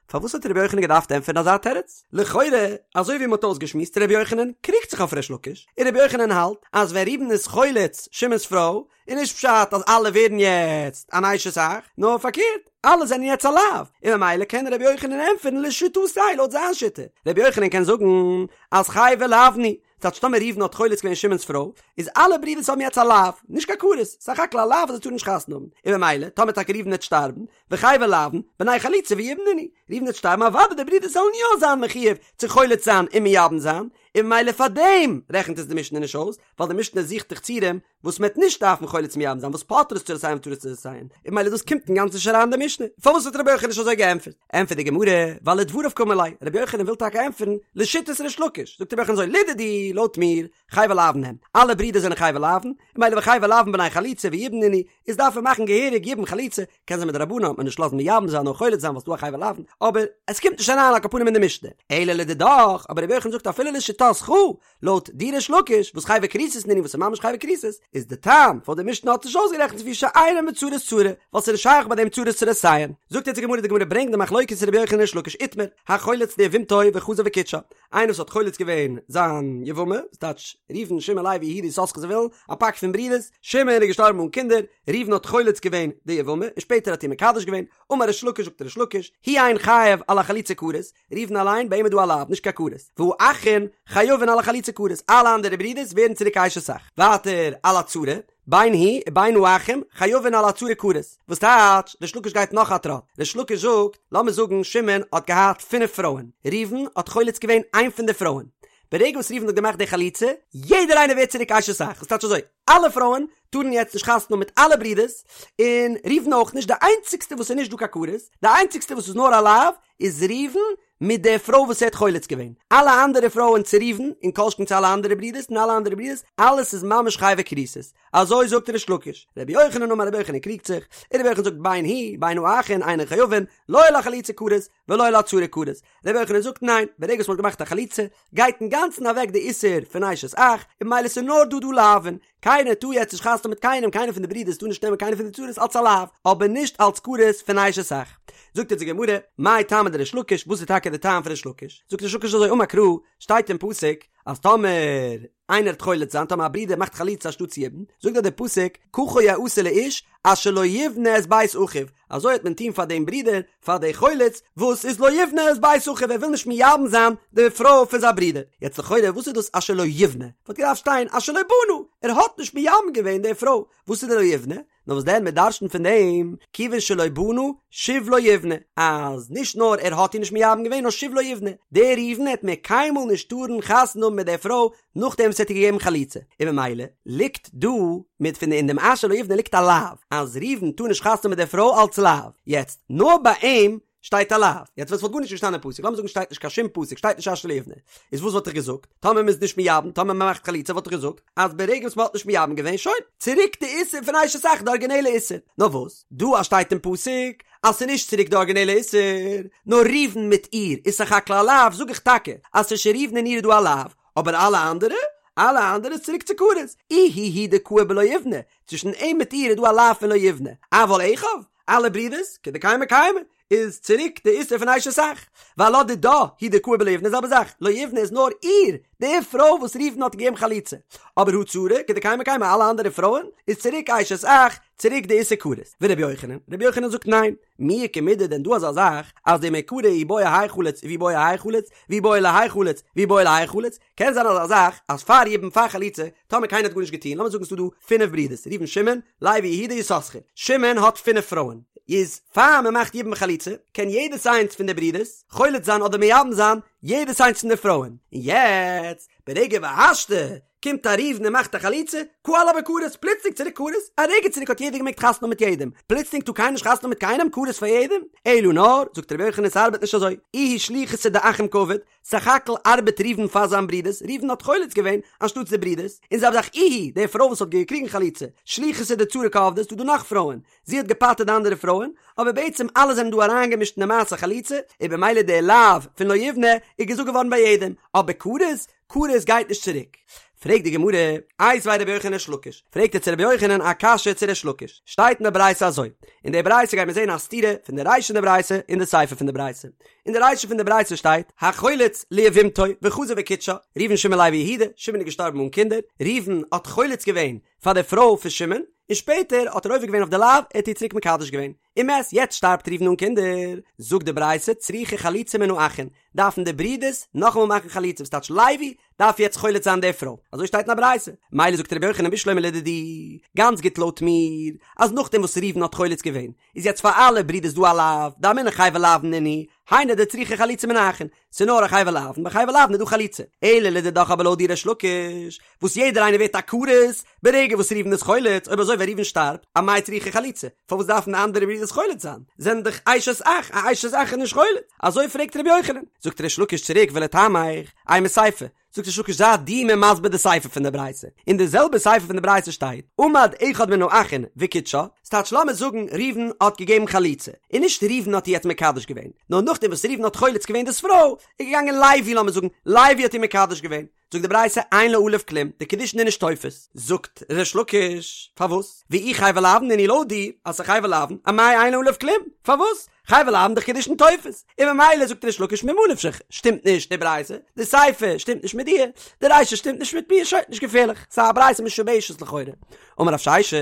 פארוואס האט רבי יוחנן געדארפט ענטפערן אזא תירוץ? לכאורה, אזוי ווי מ'האט אויסגעשמועסט, רבי יוחנן קריגט זיך אויף ריש לקיש, און רבי יוחנן האלט אז ווען ראובן איז חולץ שמעון'ס פרוי, איז נישט פשט אז אלע ווערן יעצט אן אשת אח, נאר פארקערט, אלע זענען יעצט א לאו, און ממילא קען רבי יוחנן ענטפערן לשיטתו לויט זיין שיטה. רבי יוחנן קען זאגן אז חייבי לאוין הוא, ס'טייטש טאמער ראובן האט חולץ געווען שמעון'ס פרוי, איז אלע ברידערס האבן יעצט א לאו, נישט קיין כרת, סך הכל א לאו אז זיי טארן נישט חתונה האבן, און ממילא טאמער טאקע ראובן וועט שטארבן, וחייבי לאוין, בני חליצה ויבום נינהו, ראובן וועט שטארבן אוודאי די ברידערס זאלן יא זיין מחויב צו חולץ זיין און מייבם זיין, און ממילא פארדעם רעכנט עס די משנה נישט אויס, ווייל די משנה זוכט דאך ציורים וואס מ'עט נישט דארפן חולץ מייבם זיין וואס פוטרות צרותיהן וצרות צרותיהן, און ממילא דאס קומט אינגאנצן נישט אריין אין די משנה, פארוואס האט רבי יוחנן נישט אזוי געענטפערט? ענטפערט די גמרא, ווייל לדבריו קאמר ליה, רבי יוחנן וויל טאקע ענטפערן לשיטת ריש לקיש, זאגט רבי יוחנן אזוי, לדידי, לויט מיר, חייבי לאוין הם, אלע ברידער זענען חייבי לאוין, און ממילא וחייבי לאוין בני חליצה ויבום נינהו, איז דארף מען מאכן געהעריג יבום חליצה, קען זיין מדרבנן וועט מען נישט לאזן מייבם זיין נאר חולץ זיין ווייל ס'דא א חייבי לאוין, אבער עס קומט נישט אריין על כל פנים אין די משנה, אלא לדידך, אבער רבי יוחנן זאגט אפילו לשיטתך. לשיטתך, לויט דיר ריש לקיש, וואס חייבי כריתות נינהו וואס איז ממש חייבי כריתות, איז די טעם פארוואס די משנה האט נישט אויסגערעכנט לפי שאינן בצרות צרה, ווייל ס'איז נישט שייך ביי דעם צרות צרותיהן. זאגט יעצט די גמרא, די גמרא ברענגט די מחלוקת רבי יוחנן ריש לקיש איתמר, החולץ ליבמתו וחזר וקידשה, איינער וואס האט חולץ געווען זיין יבמה, ס'טייטש ראובן שמעון לוי יהודה יששכר זבולון, א פאק פון ברידערס, שמעון איז געשטארבן אן קינדער, ראובן האט חולץ געווען די יבמה, און שפעטער האט איר מקדש געווען, אמר ריש לקיש זאגט ריש לקיש, הוא אין חייב על החליצה כרת, ראובן אליין ביי אים איז דא א לאו, נישט קיין כרת, והאחין חייבין על החליצה כרת, אלע אנדערע ברידערס ווערן צוריק אשת אח. ווייטער על הצרה, בין הוא ובין האחים חייבין על הצרה כרת, וואס טייטש, ריש לקיש גייט נאך א טראט, ריש לקיש זאגט, לאמיר זאגן שמעון האט געהאט פינף פרויען, ראובן האט חולץ געווען איין פון די פרויען, ברגע וואס ראובן האט געמאכט די חליצה, יעדער איינער ווערט צוריק אשת אח, וואס טייטש אזוי, אלע פרויען טארן יעצט נישט חתונה האבן מיט אלע ברידערס, און ראובן אויך נישט, די איינציגסטע וואס איז נישט דא קיין כרת, די איינציגסטע וואס איז נאר א לאו, איז ראובן מיט די פרוי וואס ער האט חולץ געווען, אלע אנדערע פרויען צו ראובן, און כל שכן צו אלע אנדערע ברידערס און אלע אנדערע ברידערס, אלעס איז ממש חייבי כריתות. אזוי זאגט ריש לקיש. רבי יוחנן אמר רבי יוחנן קריגט זיך, און רבי יוחנן זאגט בין הוא בין האחין אינן חייבין, לא על החליצה כרת ולא על הצרה כרת. רבי יוחנן זאגט ניין, ברגע וואס מען האט געמאכט א חליצה, גייט אינגאנצן אוועק די איסור פון אשת אח, און ממילא ס'איז נאר דא דא לאווין, קיינער טאר יעצט נישט חתונה מיט קיינעם, קיינער פון די ברידערס טאר נישט נעמען קיינער פון די צרות אלס א לאו, אבער נישט אלס כרת פון אשת אח. זאגט אונז די גמרא, מאי טעמא דריש לקיש, וואס איז טאקע די טעם פון ריש לקיש? זאגט ריש לקיש אזוי, אמר קרא, שטייט אין פסוק, אז טאמער איינער וועט חולץ זיין, טאמער א ברודער מאכט חליצה אנשטאטס יבום, זאגט דארט דער פסוק, ככה יעשה לאיש אשר לא יבנה את בית אחיו, אזוי וועט מען טון פאר דעם ברודער, פאר די חולץ, וואס איז לא יבנה את בית אחיו, ער וויל נישט מייבם זיין די פרוי פון זיין ברודער. יעצט לכאורה וואס איז דאס אשר לא יבנה? וואלט געדארפט שטיין אשר לא בנה, ער האט נישט מייבם געווען די פרוי, וואס איז די לא יבנה? נאר וואס דען מען דרש'נט פון דעם, כיוון שלא בנה, שוב לא יבנה, אז נישט נאר ער האט איר נישט מייבם געווען נאר שוב לא יבנה, דער ראובן העט מער קיינמאל נישט טארן חתונה האבן מיט די פרוי נאכדעם וואס ער האט איר געגעבן חליצה, און ממילא ליגט דא מיט פון אין דעם אשר לא יבנה ליגט א לאו, אז ראובן טאר נישט חתונה האבן מיט די פרוי אלץ לאו, יעצט נאר ביי אים שטייט א לאו, יעצט ווען ס'וואלט גארנישט געשטאנען אין פסוק, לאמיר זאגן שטייט נישט קיין שום פסוק, שטייט נישט אשר לא יבנה, איז וואס וואלט איך געזאגט? טאמער מ'איז נישט מייבם, טאמער מ'מאכט חליצה וואלט איך געזאגט אז ברגע וואס מ'האט נישט מייבם געווען, שוין, צוריק די איסור פון אשת אח, די ארגינעלע איסור. נאר וואס, דא אז שטייט אין פסוק אז ס'איז נישט צוריק די ארגינעלע איסור, נאר ראובן מיט איר איז סך הכל א לאו, זאג איך טאקע אז צווישן ראובן און איר איז דא א לאו, אבער אלע אנדערע? אלע אנדערע איז צוריק צו כרת. איהו הוא דקאי בלא יבנה, צווישן אים מיט איר איז דא א לאו פון לא יבנה, אבל אחיו, אלע ברידערס, כדקיימי קיימי, איז צוריק די איסור פון אשת אח, ועלה דידה הוא דקאי בלא יבנה זעלבע זאך, לא יבנה איז נאר איר, די פרוי וואס ראובן האט געגעבן חליצה, אבער הא צרה, כדקיימי קיימי אלע אנדערע פרויען, איז צוריק אשת אח, צוריק די איסור כרת. ורבי יוחנן, רבי יוחנן זאגט ניין, מי איכא מידי דען דא אזא זאך, אז דמעיקרא אי בעי האי חליץ ואי בעי האי חליץ, ואי בעי להאי חליץ, ואי בעי להאי חליץ, קען זיין אזא זאך אז פאר יבום פאר חליצה, טאמער קיינער האט גארנישט געטון, לאמיר זאגן ס'דא דא פינף ברידערס, ראובן שמעון, לוי יהודה יששכר, שמעון האט פינף פרויען, איז פאר מען מאכט יבום חליצה, קען יעדעס איינס פון די ברידערס חולץ זיין אדער מייבם זיין יעדעס איינס פון די פרויען, און יעצט ברגע והשתא קומט א ראובן און מאכט א חליצה, קא עלה בכרת, פלוצלינג צוריק כרת, א רגע צוריק האט יעדער געמעגט חתונה האבן מיט יעדעם, פלוצלינג טאר קיינער נישט חתונה האבן מיט קיינעם, כרת פאר יעדעם, אלא נאר, זאגט רבי יוחנן ס'ארבעט נישט אזוי, איהו שליחותא דאחים קעביד, סך הכל ארבעט ראובן פאר זיין ברודערס, ראובן האט חולץ געווען אנשטאטס די ברודערס, און זעלבע זאך איהי, די פרוי וואס האט געקריגן חליצה, שליחותא דצרה קעבדה, ס'דא דא נאך פרויען, זי האט געפטר'ט די אנדערע פרויען, אבער בעצם אלע זענען דא אריינגעמישט אין די מעשה חליצה, און במילא די לאו פון לא יבנה איז געזאגט געווארן ביי יעדעם, אבער כרת, כרת גייט נישט צוריק. פרעגט די גמרא, איתיביה רבי יוחנן לריש לקיש, פרעגט ער צו רבי יוחנן א קשיא צו ריש לקיש, שטייט אין די ברייתא אזוי, אין די ברייתא גייט מען זען א סתירה פון די רישא פון די ברייתא און די סיפא פון די ברייתא, אין די רישא פון די ברייתא שטייט, החולץ ליבמתו וחזר וקידשה, ראובן שמעון לוי יהודה, שמעון איז געשטארבן אן קינדער, ראובן האט חולץ געווען פאר די פרוי פון שמעון, און שפעטער האט ער עובר געווען אויף די לאו, ער האט איר צוריק מקדש געווען, ומת, יעצט שטארבט ראובן אן קינדער, זאגט די ברייתא, צריכה חליצה מן האחין, דארפן די ברידערס נאכאמאל מאכן חליצה, וואס טייטש לוי דארף יעצט חולץ זיין די פרוי, אזוי שטייט אין א ברייתא, מילא זאגט רבי יוחנן בשלמא לדידי, גאנץ גוט לויט מיר, אז נאכדעם וואס ראובן האט חולץ געווען, איז יעצט פאר אלע ברידערס דא א לאו, דאמינא חייבי לאוין נינהו, היינו דצריכה חליצה מן האחין, ס'איז נאר א חייבי לאוין, ביי חייבי לאוין איז דא חליצה. אלא לדידך אבער לויט דיר ריש לקיש, וואס יעדער איינער ווערט א כרת, ברגע וואס ראובן איז חולץ, אויב אזוי ווען ראובן שטארבט, אמאי צריכה חליצה, פארוואס דארפן די אנדערע ברידערס חולץ זיין? זענען דאך אשת אח, א אשת אח איז נישט חולץ. אזוי פרעגט רבי יוחנן. זאגט ריש לקיש צוריק ולטעמיך, אימא סיפא. זאגט ריש לקיש זיי דו מיר מסביר די סיפא פון די ברייתא, אין די זעלבע סיפא פון די ברייתא שטייט, עמד אחד מן האחין וקידשה, ס'טייטש לאמיר זאגן ראובן האט געגעבן חליצה, און נישט ראובן האט איר יעצט מקדש געווען, נאר נאכדעם וואס ראובן האט חולץ געווען דאס פרוי, איז געגאנגען לוי לאמיר זאגן לוי האט איר מקדש געווען, זאגט די ברייתא אין לה עליו כלום, די קידושין איז נישט תופס, זאגט ריש לקיש, פארוואס? ואי חייבי לאוין נינהו לויט דיר אז ס'איז חייבי לאוין, אמאי אין לה עליו כלום? פארוואס? חייבי לאוין דאך קידושין תופס, און ממילא זאגט ריש לקיש ממה נפשך, שטימט נישט די ברייתא, די סיפא שטימט נישט מיט דיר, די רישא שטימט נישט מיט מיר, שוין, נישט געפערליך, ס'איז א ברייתא משובשת לכאורה. אמר רב ששת,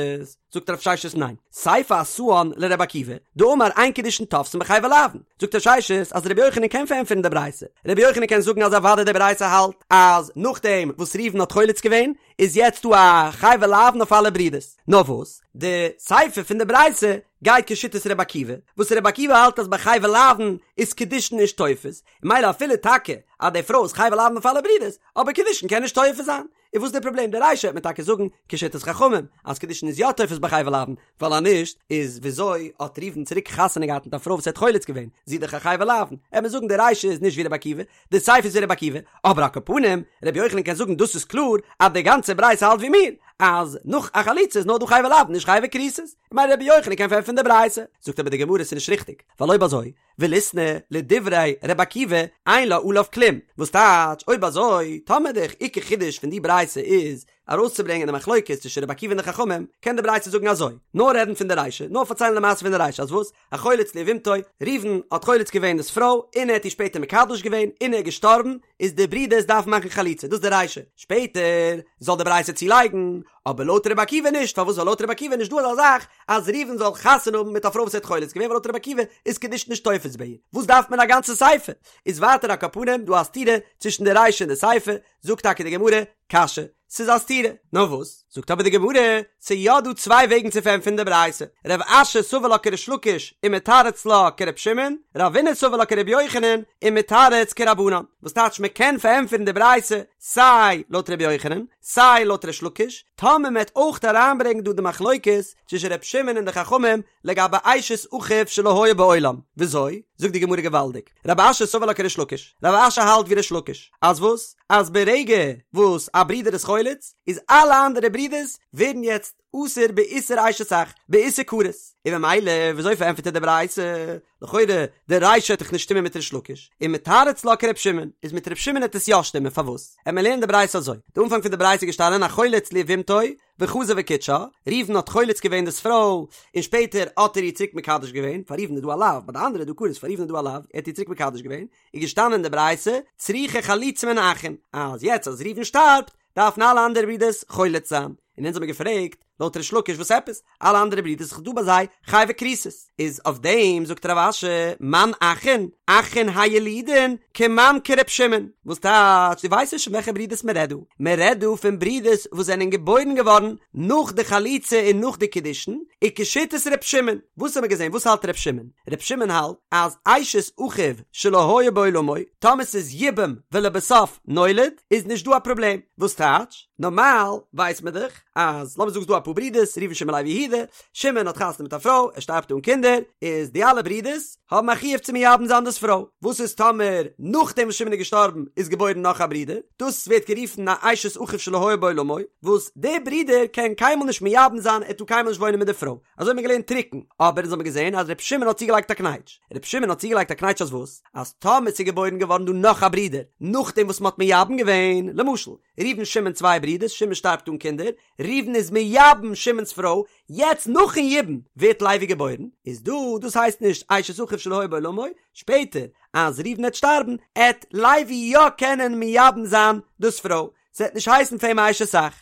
זאגט רב ששת ניין, סיפא אתאן לר' עקיבא, דאמר אין קידושין תופסין בחייבי לאוין, זאגט רב ששת אז ר' יוחנן קען פארענטפערן די ברייתא, ר' יוחנן קען זאגן אז אוודאי די ברייתא האלט אז נאכדעם וואס ראובן האט חולץ געווען איז יעצט דא א חייבי לאוין אויף אלע ברידערס, נאר וואס די סיפא פון די ברייתא גייט כשיטת ר' עקיבא, וואס ר' עקיבא האלט אז ביי חייבי לאוין איז קידושין נישט תופס, ממילא אפילו טאקע אז די פרוי איז חייבי לאוין אויף אלע ברידערס, אבער קידושין קען נישט תופס זיין. און וואס איז די פראבלעם? די רישא וועט מען טאקע זאגן כשיטת חכמים אז קידושין איז יא תופס ביי חייבי לאוין, ווייל אז נישט איז וויאזוי האט ראובן צוריק חתונה געהאט מיט א פרוי וואס ער האט חולץ געווען, זי איז דאך א חייבי לאוין, וועט מען זאגן די רישא איז נישט ווי רבי עקיבא, די סיפא איז ווי רבי עקיבא, אבער על כל פנים רבי יוחנן קען זאגן דאס איז קלאר אז די גאנצע ברייתא האלט ווי מיר, אז נאך א חליצה איז נאר דא חייבי לאוין נישט חייבי כריתות, ממילא רבי יוחנן קען פארענטפערן די ברייתא, זאגט אבער די גמרא ס'איז נישט ריכטיג, ווייל אויב אזוי וליתני לדברי ר' עקיבא אין לה עליו כלום, וואס טייטש אויב אזוי טאמער די עיקר חידוש פון די ברייתא איז ארויסצוברענגען די מחלוקת צווישן ר' עקיבא און די חכמים, קען די ברייתא זאגן אזוי, נאר רעדן פון די רישא, נאר פארציילן די מעשה פון די רישא אז וואס? החולץ ליבמתו, ראובן האט חולץ געווען דאס פרוי און ער האט איר שפעטער מקדש געווען און ער איז געשטארבן, איז די ברידערס דארפן מאכן חליצה, דאס איז די רישא, שפעטער זאל די ברייתא צולייגן, אבער לויט רבי עקיבא נישט, פארוואס ווייל לויט רבי עקיבא איז נישט דא אזא זאך אז ראובן זאל חתונה האבן מיט א פרוי וואס ער האט חולץ געווען ווייל לויט רבי עקיבא איז קידושין נישט תופס ביי איר, וואס דארף מען א גאנצע סיפא? איז ווייטער על כל פנים דא א סתירה צווישן די רישא און די סיפא, זאגט טאקע די גמרא, קשיא, ס'איז א סתירה, נאר וואס? זאגט אבער די גמרא, ס'איז יא דא צוויי וועגן צו פארענטפערן די ברייתא, רב אשי סבר לה כריש לקיש ומתרץ לה כר' שמעון, רבינא סבר לה כר' יוחנן ומתרץ כרבנן, וואס טייטש מ'קען פארענטפערן די ברייתא סיי לויט ר' יוחנן, סיי לויט ריש לקיש, טאמער מ'וועט אויך אריינברענגן דא די מחלוקת צווישן ר' שמעון און די חכמים לגבי אשת אחיו שלא היה בעולם, וויאזוי? זאגט די גמרא געוואלדיג, רב אשי סבר לה כריש לקיש, רב אשי האלט ווי ריש לקיש, אז וואס? אז ברגע וואס א ברודער איז חולץ, איז אלע אנדערע ברודערס ווערן יעצט אסור באיסור אשת אח, באיסור כרת, און ממילא וויאזוי פארענטפערט ער די ברייתא? לכאורה די רישא וועט דאך נישט שטימען מיט ריש לקיש, ומתרץ לה כר' שמעון, איז מיט ר' שמעון העט עס יא שטימען, פארוואס? עמיר לערנען די ברייתא אזוי, די אנפאנג פון די ברייתא איז געשטאנען החולץ ליבמתו וחזר וקידשה, ראובן האט חולץ געווען דאס פרוי, און שפעטער האט ער איר צוריק מקדש געווען, פאר ראובן איז דא א לאו, ביי די אנדערע איז דא כרת, פאר ראובן איז דא א לאו, ער האט איר צוריק מקדש געווען, איז געשטאנען אין די ברייתא, צריכה חליצה מן האחין, אז יעצט אז ראובן שטארבט, דארפן אלע אנדערע ברידערס חולץ זיין, און אונז האמיר געפרעגט, לויט ריש לקיש וואס עפעס? אלע אנדערע ברידערס איז דא ביי זיי חייבי כריתות, איז אויף דעם זאגט רב אשי, מאן אחין, אחין הילודין, כמאן כר' שמעון, וואס טייטש, דו ווייסט נישט פון וועלכע ברידערס מען רעדט דא, מען רעדט דא פון ברידערס וואס זענען געבוירן געווארן נאך די חליצה און נאך די קידושין, וכשיטת ר' שמעון, וואס האמיר געזען, וואס האלט ר' שמעון? ר' שמעון האלט אז אשת אחיו שלא היה בעולמו, טאמער ס'איז יבם ולבסוף נולד, איז נישט דא א פראבלעם, וואס טייטש? נארמאל ווייסט מען דאך אז לאמיר זאגן ס'דא אפאר ברידערס, ראובן שמעון לוי יהודה, שמעון האט חתונה מיט א פרוי, ער שטארבט אן קינדער, איז די אלע ברידערס האבן א חיוב צו מייבם זיין דאס פרוי, וואס איז טאמער נאכדעם וואס שמעון איז געשטארבן איז געבוירן נאך א ברודער, דאס ווערט גערופן א אשת אחיו שלא היה בעולמו, וואס דער ברודער קען קיינמאל נישט מייבם זיין, ער טאר קיינמאל נישט וואוינען מיט די פרוי, אזוי האט מען געלערנט טרוקן, אבער אונז האבן געזען אז ר' שמעון האט צוגעלייגט א קנייטש, ר' שמעון האט צוגעלייגט א קנייטש אז וואס? אז טאמער ס'איז געבוירן געווארן דא נאך א ברודער נאכדעם וואס מ'האט מייבם געווען, למשל, ראובן שמעון צוויי ברידערס, שמעון שטארבט אן קינדער, ראובן איז מייבם שמעון'ס פרוי, יעצט נאכן יבום ווערט לוי געבוירן, איז דא, דאס הייסט נישט אשת אחיו שלא היה בעולמו, שפעטער אז ראובן עט שטארבן, עט לוי יא קענען מייבם זיין דאס פרוי, ס'עט נישט הייסן פאר אים א אשת אח,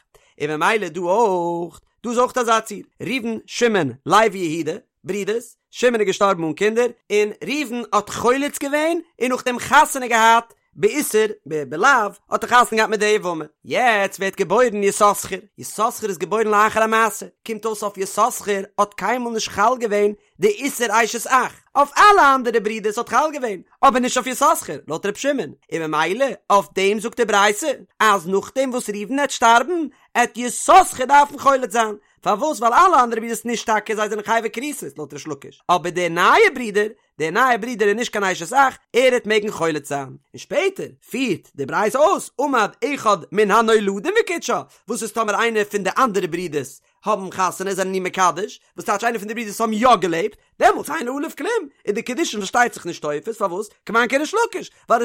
און ממילא דא אויך, דא איז אויך אזא ציור, ראובן, שמעון, לוי, יהודה, ברידערס, שמעון איז געשטארבן אן קינדער, און ראובן האט חולץ געווען און נאכדעם חתונה געהאט באיסור, בלאו, האט ער חתונה געהאט מיט די יבמה. יעצט ווערט געבוירן יששכר, יששכר איז געבוירן לאחר המעשה, קומט אויס אויף יששכר האט קיינמאל נישט חל געווען די איסור אשת אח, אויף אלע אנדערע ברידערס האט חל געווען, אבער נישט אויף יששכר, לויט ר' שמעון, און ממילא אויף דעם זאגט די ברייתא אז נאכדעם וואס ראובן עט שטארבן, עט יששכר דארפן חולץ זיין, פארוואס? ווייל אלע אנדערע ברידערס נישט טאקע זיי זענען חייבי כריתות לויט ריש לקיש, אבער דער נייער ברודער, דער נייער ברודער איז נישט קיין אשת אח, ער העט מעגן חולץ זיין. און שפעטער פירט די ברייתא אויס, עמד אחד מן הנולדים וקידשה, וואס איז טאמער איינער פון די אנדערע ברודערס האבן חתונה זענען איר מקדש, וואס טייטש איינער פון די ברודערס האבן יא געלעבט, דעמאלטס אין עליו כלום, איז די קידושין פארשטייט זיך נישט תופס, פארוואס? כמאן כריש לקיש, ווייל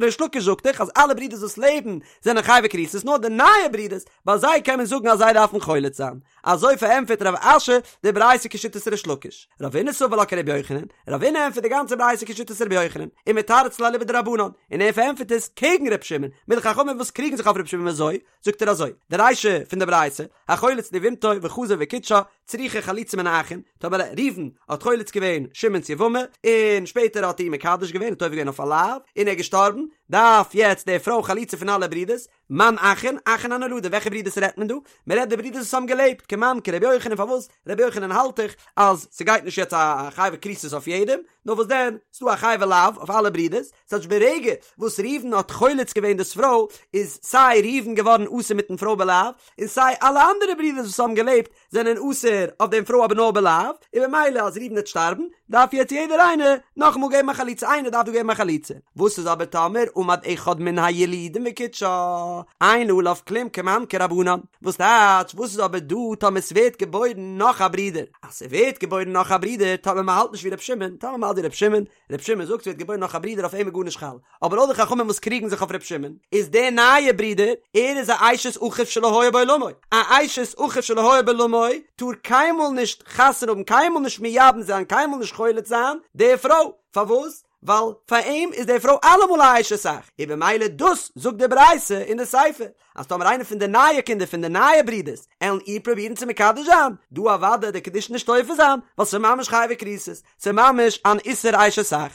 ריש לקיש זאגט דאך אז אלע ברודערס וואס לעבן זענען חייבי כריתות נאר די נייע ברודערס, ביי זיי קען מען זאגן אז זיי דארפן חולץ זיין. אזוי פארענטפערט רב אשי די ברייתא כשיטת ריש לקיש. רבינא סבר לה כרבי יוחנן, רבינא ענטפערט די גאנצע ברייתא כשיטת רבי יוחנן, ומתרץ לה אליבא דרבנן, און ער פארענטפערט עס קעגן ר' שמעון, מיט די חכמים וואס קריגן זיך אויף ר' שמעון וויאזוי? זאגט ער אזוי, די רישא פון די ברייתא, החולץ ליבמתו וחזר וקידשה, צריכה חליצה מן האחין, טאמער ראובן האט חולץ געווען שמעון'ס יבמה, און שפעטער האט ער איר מקדש געווען, האט עובר געווען אויף א לאו, און ער איז געשטארבן, דארף יעצט די פרוי חליצה פון אלע ברידערס, מאן אחין, אחין הנולדים, וועלכע ברידערס רעדט מען דא? מען רעדט די ברידערס וואס האבן געלעבט, כמאן כרבי יוחנן, פארוואס? רבי יוחנן האלט דאך אז ס'גייט נישט יעצט א חייבי כריתות אויף יעדעם, נאר וואס דען, ס'דא א חייבי לאו אויף אלע ברידערס, ס'טייטש ברגע וואס ראובן האט חולץ געווען דאס פרוי, איז סיי ראובן געווארן אסור מיטן פרוי בלאו, און סיי אלע אנדערע ברידערס וואס האבן געלעבט זענען אסור אויף דעם פרוי אבער נאר בלאו, און במילא אז ראובן וועט שטארבן, דארף יעצט יעדער איינער נאכאמאל געבן א חליצה, איינער דארף דא געבן א חליצה. וואס איז אבער טאמער עמד אחד מן הילודים וקידשה, אין עליו כלום כמאן כרבנן, וואס טייטש וואס איז אבער דא טאמער ס'ווערט געבוירן נאך א ברודער, אז ס'ווערט געבוירן נאך א ברודער טאמער מ'האלט נישט ווי ר' שמעון, טאמער מ'האלט ווי ר' שמעון, ר' שמעון זאגט ס'ווערט געבוירן נאך א ברודער אויף אים איז גארנישט חל, אבער לויט די חכמים וואס קריגן זיך אויף ר' שמעון, איז דער נייער ברודער, ער איז א אשת אחיו שלא היה בעולמו, א אשת אחיו שלא היה בעולמו טאר קיינמאל נישט חתונה האבן קיינמאל נישט מייבם זיין קיינמאל נישט חולץ זיין די פרוי, פארוואס? ווייל פאר אים איז די פרוי אלעמאל א אשת אח, און במילא דאס זאגט די ברייתא אין די סיפא, אז טאמער איינער פון די נייע קינדער פון די נייע ברודערס עלן איר פרובירן צו מקדש זיין, דא אוודאי די קידושין נישט תופס זיין, ווייל ס'איז ממש חייבי כריתות, ס'איז ממש אן איסור אשת אח.